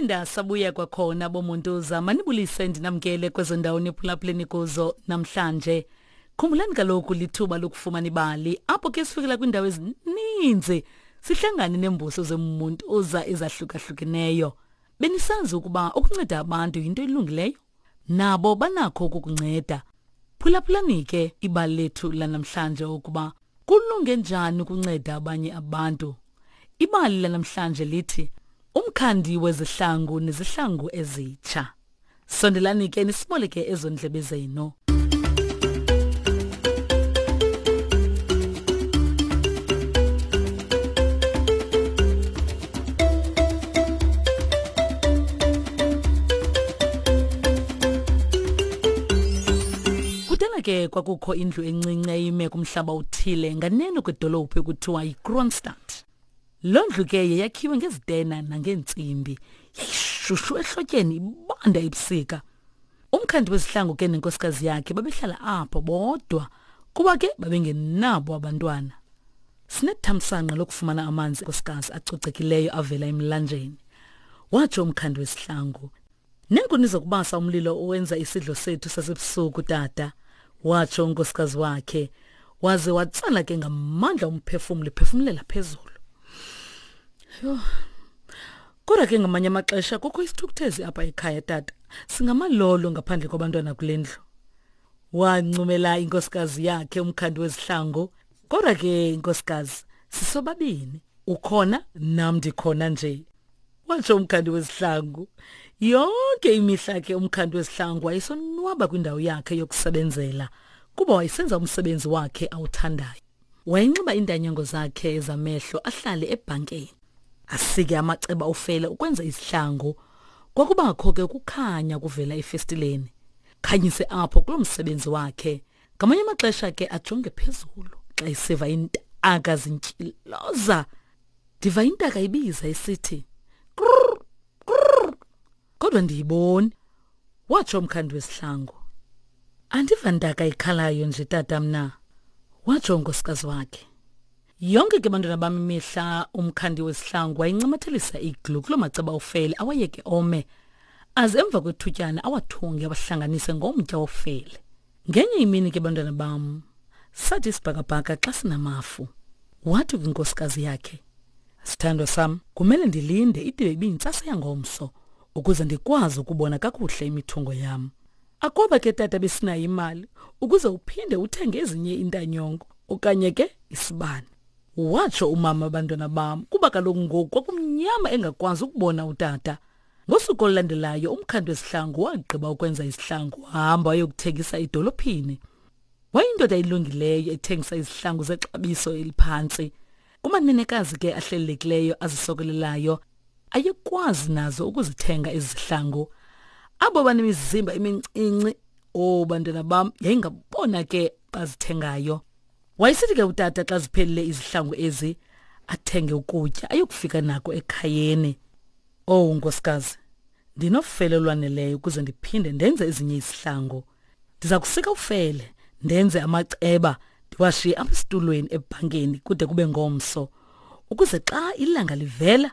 Saphinda sabuya kwakhona bomuntuza manibulise ndinamkele kwezo ndawo niphulaphuleni kuzo namhlanje. Khumbulani kaloku lithuba lokufumana ibali apho ke sifikela kwiindawo ezininzi sihlangane neembuso zemuntuza ezahlukahlukeneyo. Benisazi ukuba ukunceda abantu yinto elungileyo? Nabo banakho ukukunceda. Phulaphulani ke ibali lethu lanamhlanje ukuba kulunge njani ukunceda abanye abantu. Ibali lanamhlanje lithi umkhandi wezihlangu nezihlangu ezitsha. Sondelani ke nisiboleke ezo ndlebe zenu. Kudala ke kwakukho indlu encinci eyime kumhlaba othile nganeno kwedolophu ekuthiwa yiKroonstad. Loo ndlu ke yayakhiwe ngezitena nangeentsimbi. Yayishushu ehlotyeni ibanda ebusika. Umkhandi wezihlangu ke nenkosikazi yakhe babehlala apho bodwa kuba ke babengenabo abantwana. Sinethamsanqa lokufumana amanzi nkosikazi acocekileyo avela emlanjeni. Watsho umkhandi wezihlangu. Neenkuni zokubasa umlilo owenza isidlo sethu sasebusuku tata, watsho unkosikazi wakhe, waze watsala ke ngamandla umphefumlo ephefumlela phezulu. Yho. Kodwa ke ngamanye amaxesha kukho isithukuthezi apha ekhaya tata. Singamalolo ngaphandle kwabantwana kule ndlu. Wancumela inkosikazi yakhe umkhandi wezihlangu. Kodwa ke inkosikazi sisobabini. Ukhona nam ndikhona nje. Watsho umkhandi wezihlangu. Yonke imihla ke umkhandi wezihlangu wayesonwaba kwindawo yakhe yokusebenzela kuba wayesenza umsebenzi wakhe awuthandayo. Wayenxiba iintanyango zakhe zamehlo ahlale ebhankeni. Asike amaceba ofele ukwenza izihlangu. Kwakubakho ke ukukhanya kuvela efestileni. Khanyise apho kuloo msebenzi wakhe. Ngamanye amaxesha ke ajonge phezulu xa esiva iintaka zintyiloza. Ndiva intaka ibiza isithi krrr krrr kodwa ndiyiboni watsho umkhandi wesihlangu andiva ntaka ikhalayo nje tata mna watsho unkosikazi wakhe yonke ke bantwana bam imihla umkhandi wesihlangu wayincamathelisa iglu kuloo maceba ofele awayeke ome aze emva kwethutyana awathunge awahlanganise ngomtya wofele Ngenye imini ke bantwana bam, sathi isibhakabhaka xa sinamafu. Wathi kwinkosikazi yakhe, Sithandwa sam, kumele ndilinde ide ibiyintsasa yangomso ukuze ndikwazi ukubona kakuhle imithungo yam. Akwaba ke tata besinayo imali ukuze uphinde uthenge ezinye iintanyongo okanye ke isibane. Watsho umama abantwana bam kuba kaloku ngoku kwakumnyama engakwazi ukubona utata. Ngosuku olulandelayo umkhandi wesihlangu wagqiba ukwenza isihlangu wahamba wayokuthengisa edolophini. Wayindoda elungileyo ethengisa izihlangu zexabiso eliphantsi. Kumanenekazi ke ahlelelekileyo azisokolelayo ayekwazi nazo ukuzithenga ezi zihlangu. Abo banemizimba emincinci, oh bantwana bam, yayingabona ke bazithengayo. Wayesithi ke utata xa ziphelile izihlangu ezi athenge ukutya ayokufika nako ekhayeni. Owu nkosikazi, ndinofele olwaneleyo ukuze ndiphinde ndenze ezinye izihlangu. Ndiza kusika ufele, ndenze amaceba, ndiwashiye apha esitulweni ebhankeni kude kube ngomso, ukuze xa ilanga livela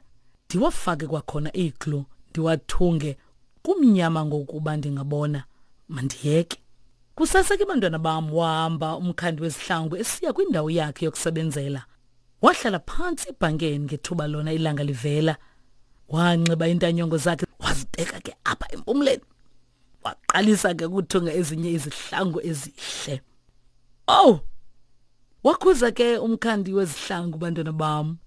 ndiwafake kwakhona iiglu ndiwathunge kumnyama ngokuba ndingabona. Mandiyeke. Kusasa ke bantwana bam wahamba umkhandi wezihlangu esiya kwindawo yakhe yokusebenzela. Wahlala phantsi ebhankeni ngethuba lona ilanga livela. Wanxiba iintanyongo zakhe wazibeka ke apha empumleni. Waqalisa ke ukuthunga ezinye izihlangu ezihle. Oh! Wakhuza ke umkhandi wezihlangu bantwana bam.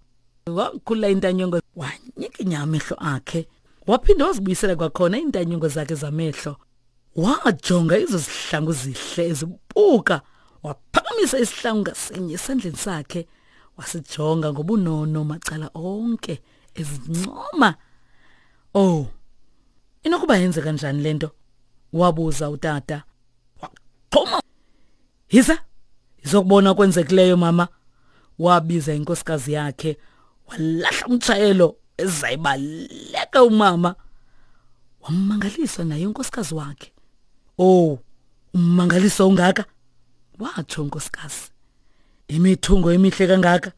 Wakhula intanyongo wanyikinya amehlo akhe. Waphinda wazibuyisela kwakhona iintanyongo zakhe zamehlo. Wajonga ezo zihlangu zihle ezibuka, waphakamisa isihlangu ngasinye esandleni sakhe, wasijonga ngobunono macala onke ezincoma. Oh, inokuba yenze kanjani le nto? Wabuza utata. Waqhuma. Yiza, izokubona okwenzekileyo mama. Wabiza inkosikazi yakhe, walahla umtshayelo ezayibaleka umama. Wammangaliswa naye unkosikazi wakhe. Oh, ummangaliso ungaka, watsho unkosikazi. Imithungo emihle kangaka,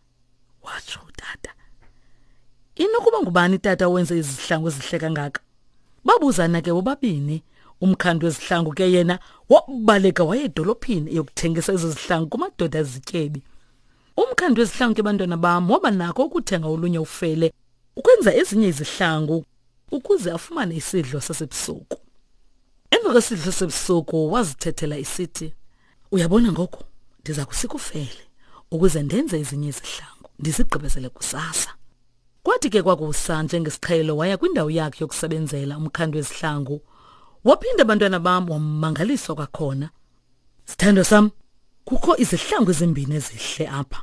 watsho utata. Inokuba ngubani tata owenze izihlangu ezihle kangaka? Babuzana ke bobabini. Umkhandi wezihlangu ke yena wabaleka waye edolophini eyokuthengisa ezo zihlangu kumadoda azityebi. Umkhandi wezihlangu ke bantwana bam waba nako ukuthenga olunye ufele ukwenza ezinye izihlangu ukuze afumane isidlo sasebusuku. Emva kwesidlo sasebusuku wazithethela isithi, uyabona ngoku ndiza kusika ufele ukuze ndenze ezinye izihlangu ndizigqibezele kusasa. Kwathi ke kwakusa njengesiqhelo waya kwindawo yakhe yokusebenzela umkhandi wezihlangu. Waphinda abantwana bam wamangaliswa kwakhona. Sithandwa sam, kukho izihlangu ezimbini ezihle apha.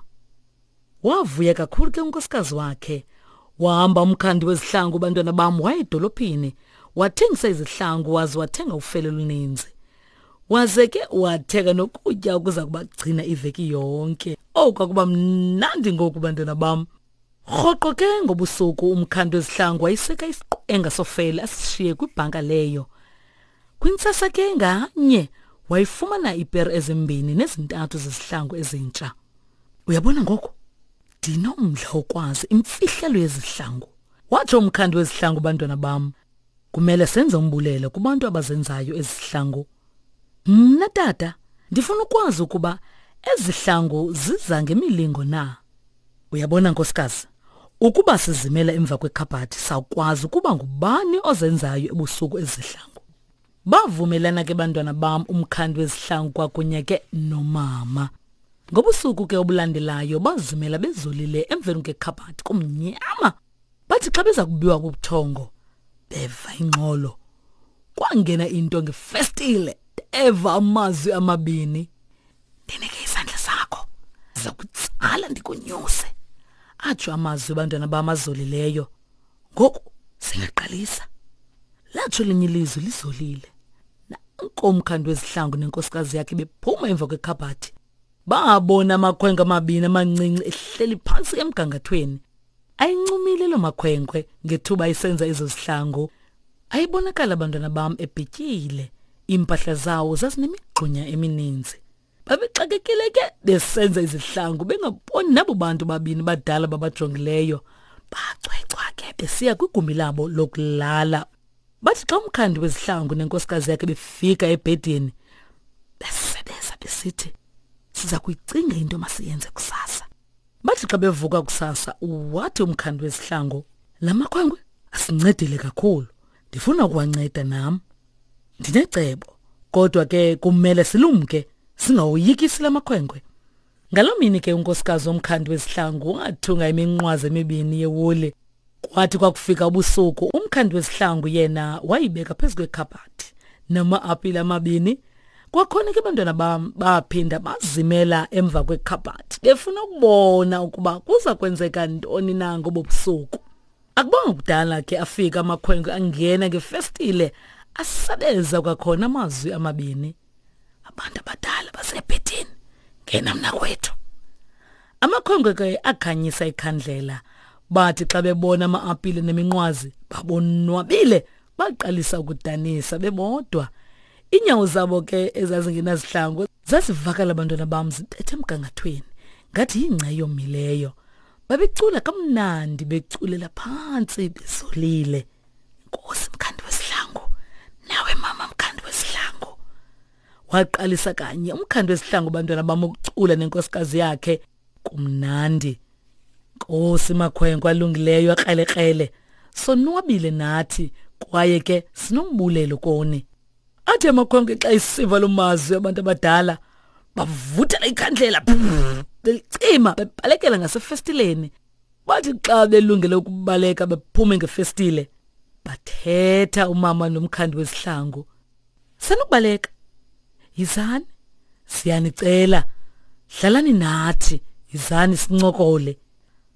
Wavuya kakhulu ke unkosikazi wakhe. Wahamba umkhandi wezihlangu bantwana bam waya edolophini. Wathengisa izihlangu waze wathenga ufele oluninzi. Waze ke wathenga nokutya okuza kubagcina iveki yonke. Owu kwakuba mnandi ngoku bantwana bam. Rhoqo ke ngobusuku umkhandi wezihlangu wayiseka isiqenga sofele asishiye kwibhanka leyo. Kwintsasa ke nganye wayifumana iipere ezimbini nezintathu zezihlangu ezintsha. Uyabona ngoku ndinomdla wokwazi imfihlelo yezihlangu, watsho umkhandi wezihlangu. Bantwana bam, kumele senze umbulelo kubantu abazenzayo ezihlangu. Mna tata ndifuna ukwazi ukuba ezihlangu ziza ngemilingo na. Uyabona nkosikazi, ukuba sizimela emva kwekhabhathi sawukwazi ukuba ngubani ozenzayo ebusuku ezihlangu. Bavumelana ke bantwana bam umkhandi wezihlangu kwakunye ke nomama. Ngobusuku ke obulandelayo bazimela bezolile emveni kwekhabhathi kumnyama. Bathi xa beza kubiwa kubuthongo beva ingxolo. Kwangena into ngefestile eva amazwi amabini. Ndinike isandla sakho. Ndiza kutsala ndikunyuse. Atsho amazwi abantwana bam azolileyo. Ngoku singaqalisa. Latsho elinye ilizwi lizolile. Nanko umkhandi wezihlangu nenkosikazi yakhe bephuma emva kwekhabhathi. Babona amakhwenkwe amabini amancinci ehleli phantsi emgangathweni. Ayincumile loo makhwenkwe ngethuba isenza ezo zihlangu. Ayibonakala abantwana bam ebhityile. Iimpahla zawo zazinemigxunya emininzi. Babexakekile ke besenza izihlangu bengaboni nabo bantu babini badala babajongileyo. Bacwecwa ke besiya kwigumbi labo lokulala. Bathi xa umkhandi wezihlangu nenkosikazi yakhe befika ebhedini besebeza besithi siza kuyicinga into masiyenze kusasa. Bathi xa bevuka kusasa wathi umkhandi wezihlangu la makhwenkwe asincedile kakhulu ndifuna ukuwanceda nam. Ndinecebo kodwa ke kumele silumke singawoyikisi la makhwenkwe. Ngaloo mini ke unkosikazi womkhandi wezihlangu wathunga iminqwazi emibini yewuli. Kwathi kwakufika ubusuku umkhandi wezihlangu yena wayibeka phezu kwekhabhathi nama-apile amabini. Kwakhona ke abantwana bam baphinda bazimela emva kwekhabhathi befuna ukubona ukuba kuza kwenzeka ntoni na ngobo busuku. Akubanga kudala ke afika amakhwenkwe angena ngefestile asabeza kwakhona amazwi amabini. Abantu abadala basebhedini, ngena mna kwethu. Amakhwenkwe ke akhanyisa ikhandlela. Bathi xa bebona ama-apile neminqwazi babonwabile baqalisa ukudanisa bebodwa. Iinyawo zabo ke ezazingenazihlangu zazivakala abantwana bam zibethe emgangathweni ngathi yingca eyomileyo. Babecula kamnandi beculela phantsi bezolile. Nkosi mkhandi wesihlangu, nawe mama mkhandi wesihlangu. Waqalisa kanye umkhandi wesihlangu bantwana bam ukucula nenkosikazi yakhe kumnandi. Nkosi makhwenkwe alungileyo akrelekrele, sonwabile nathi kwaye ke sinombulelo koni. Athi amakhwenkwe xa isiva lo mazwi abantu abadala bavuthela ikhandlela belicima bebalekela ngasefestileni. Bathi xa belungele ukubaleka bephume ngefestile bathetha umama nomkhandi wezihlangu. Sanukubaleka. Yizani. Siyanicela. Hlalani nathi. Yizani sincokole.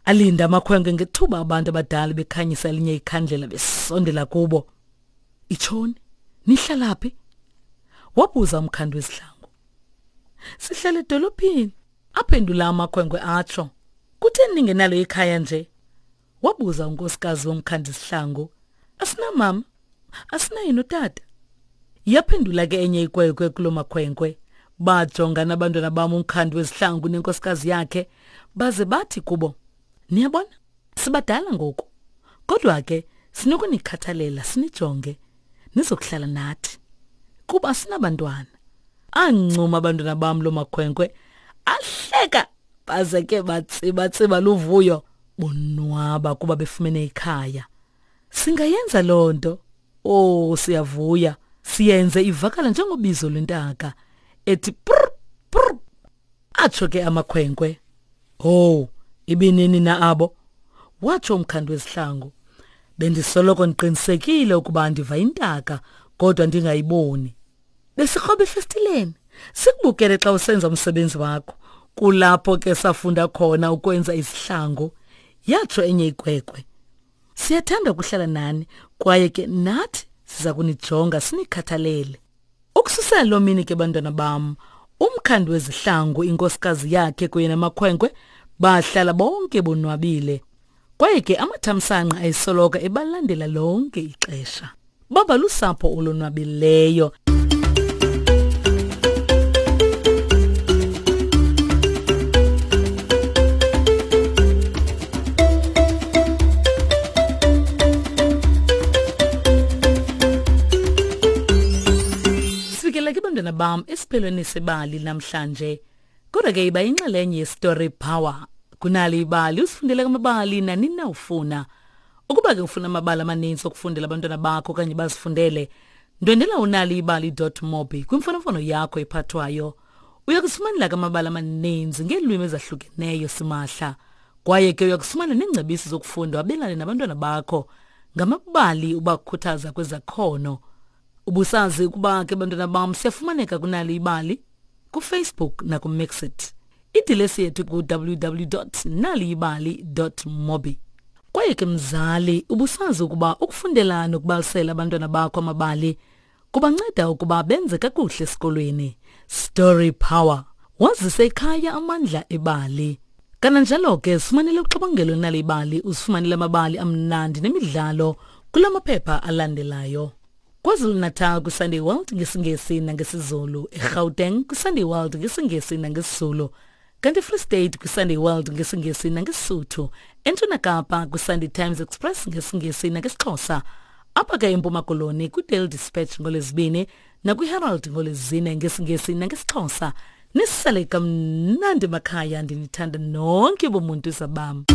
Alinda amakhwenkwe ngethuba abantu abadala bekhanyisa elinye ikhandlela besondela kubo. Itshoni, nihlala phi? Wabuza umkhandi wezihlangu. Sihlala edolophini, aphendula amakhwenkwe atsho. Kutheni ningenalo ikhaya nje? Wabuza unkosikazi womkhandi zihlangu. Asinamama, asinaye notata. Yaphendula ke enye ikwekwe kuloo makhwenkwe. Bajongana abantwana bam umkhandi wezihlangu nenkosikazi yakhe baze bathi kubo, niyabona, sibadala ngoku. Kodwa ke sinokunikhathalela sinijonge nizokuhlala nathi kuba sinabantwana. Ancuma abantwana bam loo makhwenkwe ahleka baze ke batsibatsiba luvuyo bonwaba kuba befumene ikhaya. Singayenza loo nto. Oh, siyavuya. Siyenze ivakala njengobizo lwentaka ethi prr prr. Atsho ke amakhwenkwe. Oh, ibinini na abo? Watsho umkhandi wezihlangu. Bendisoloko ndiqinisekile ukuba ndiva intaka kodwa ndingayiboni. Besikroba efestileni sikubukele xa usenza umsebenzi wakho. Kulapho ke safunda khona ukwenza izihlangu, yatsho enye ikwekwe. Siyathanda ukuhlala nani kwaye ke nathi siza kunijonga sinikhathalele. Ukususela loo mini ke bantwana bam, umkhandi wezihlangu, inkosikazi yakhe kunye namakhwenkwe bahlala bonke bonwabile. Kwaye ke amathamsanqa ayesoloko ebalandela lonke ixesha. Baba lusapho olonwabileyo. Sifikela ke bantwana bam esiphelweni sebali namhlanje. Kodwa ke iba inxalenye yeStory Power. Kunali ibali usifundele amabali nanini na ufuna. Ukuba ke ufuna amabali amaninzi okufundela abantwana bakho okanye bazifundele, ndwendela unaliibali.mobi kwimfonomfono yakho ephathwayo. Uya kusifumanela ke amabali amaninzi ngeelwimi ezahlukeneyo simahla. Kwaye ke uya kufumana neengcebiso zokufunda wabelane nabantwana bakho ngamabali ubakhuthaza kwezakhono. Ubusazi ukuba ke bantwana bam siyafumaneka kunali ibali kuFacebook nakuMixit. Idilesi yethu ku-www.naliyibali.mobi. Kwaye ke mzali, ubusazi ukuba ukufundela nokubalisela abantwana bakho amabali kubanceda ukuba benze kakuhle esikolweni. Story Power. Wazise ekhaya amandla ebali. Kananjalo ke sifumanele uxabangelo nalibali usifumanele amabali amnandi nemidlalo kula maphepha alandelayo. KwaZulu-Natal kwiSunday World ngesiNgesi nangesiZulu, eGauteng kwiSunday World ngesiNgesi nangesiZulu, kanti eFree State kwiSunday World ngesiNgesi nangeSisuthu, eNtshona Kapa kwiSunday Times Express ngesiNgesi nangesiXhosa, apha ke eMpuma Koloni kwiDaily Dispatch ngoLwezibini nakwiHerald ngoLwezine ngesiNgesi nangesiXhosa. Nisale kamnandi makhaya, ndinithanda nonke bomuntu zabam.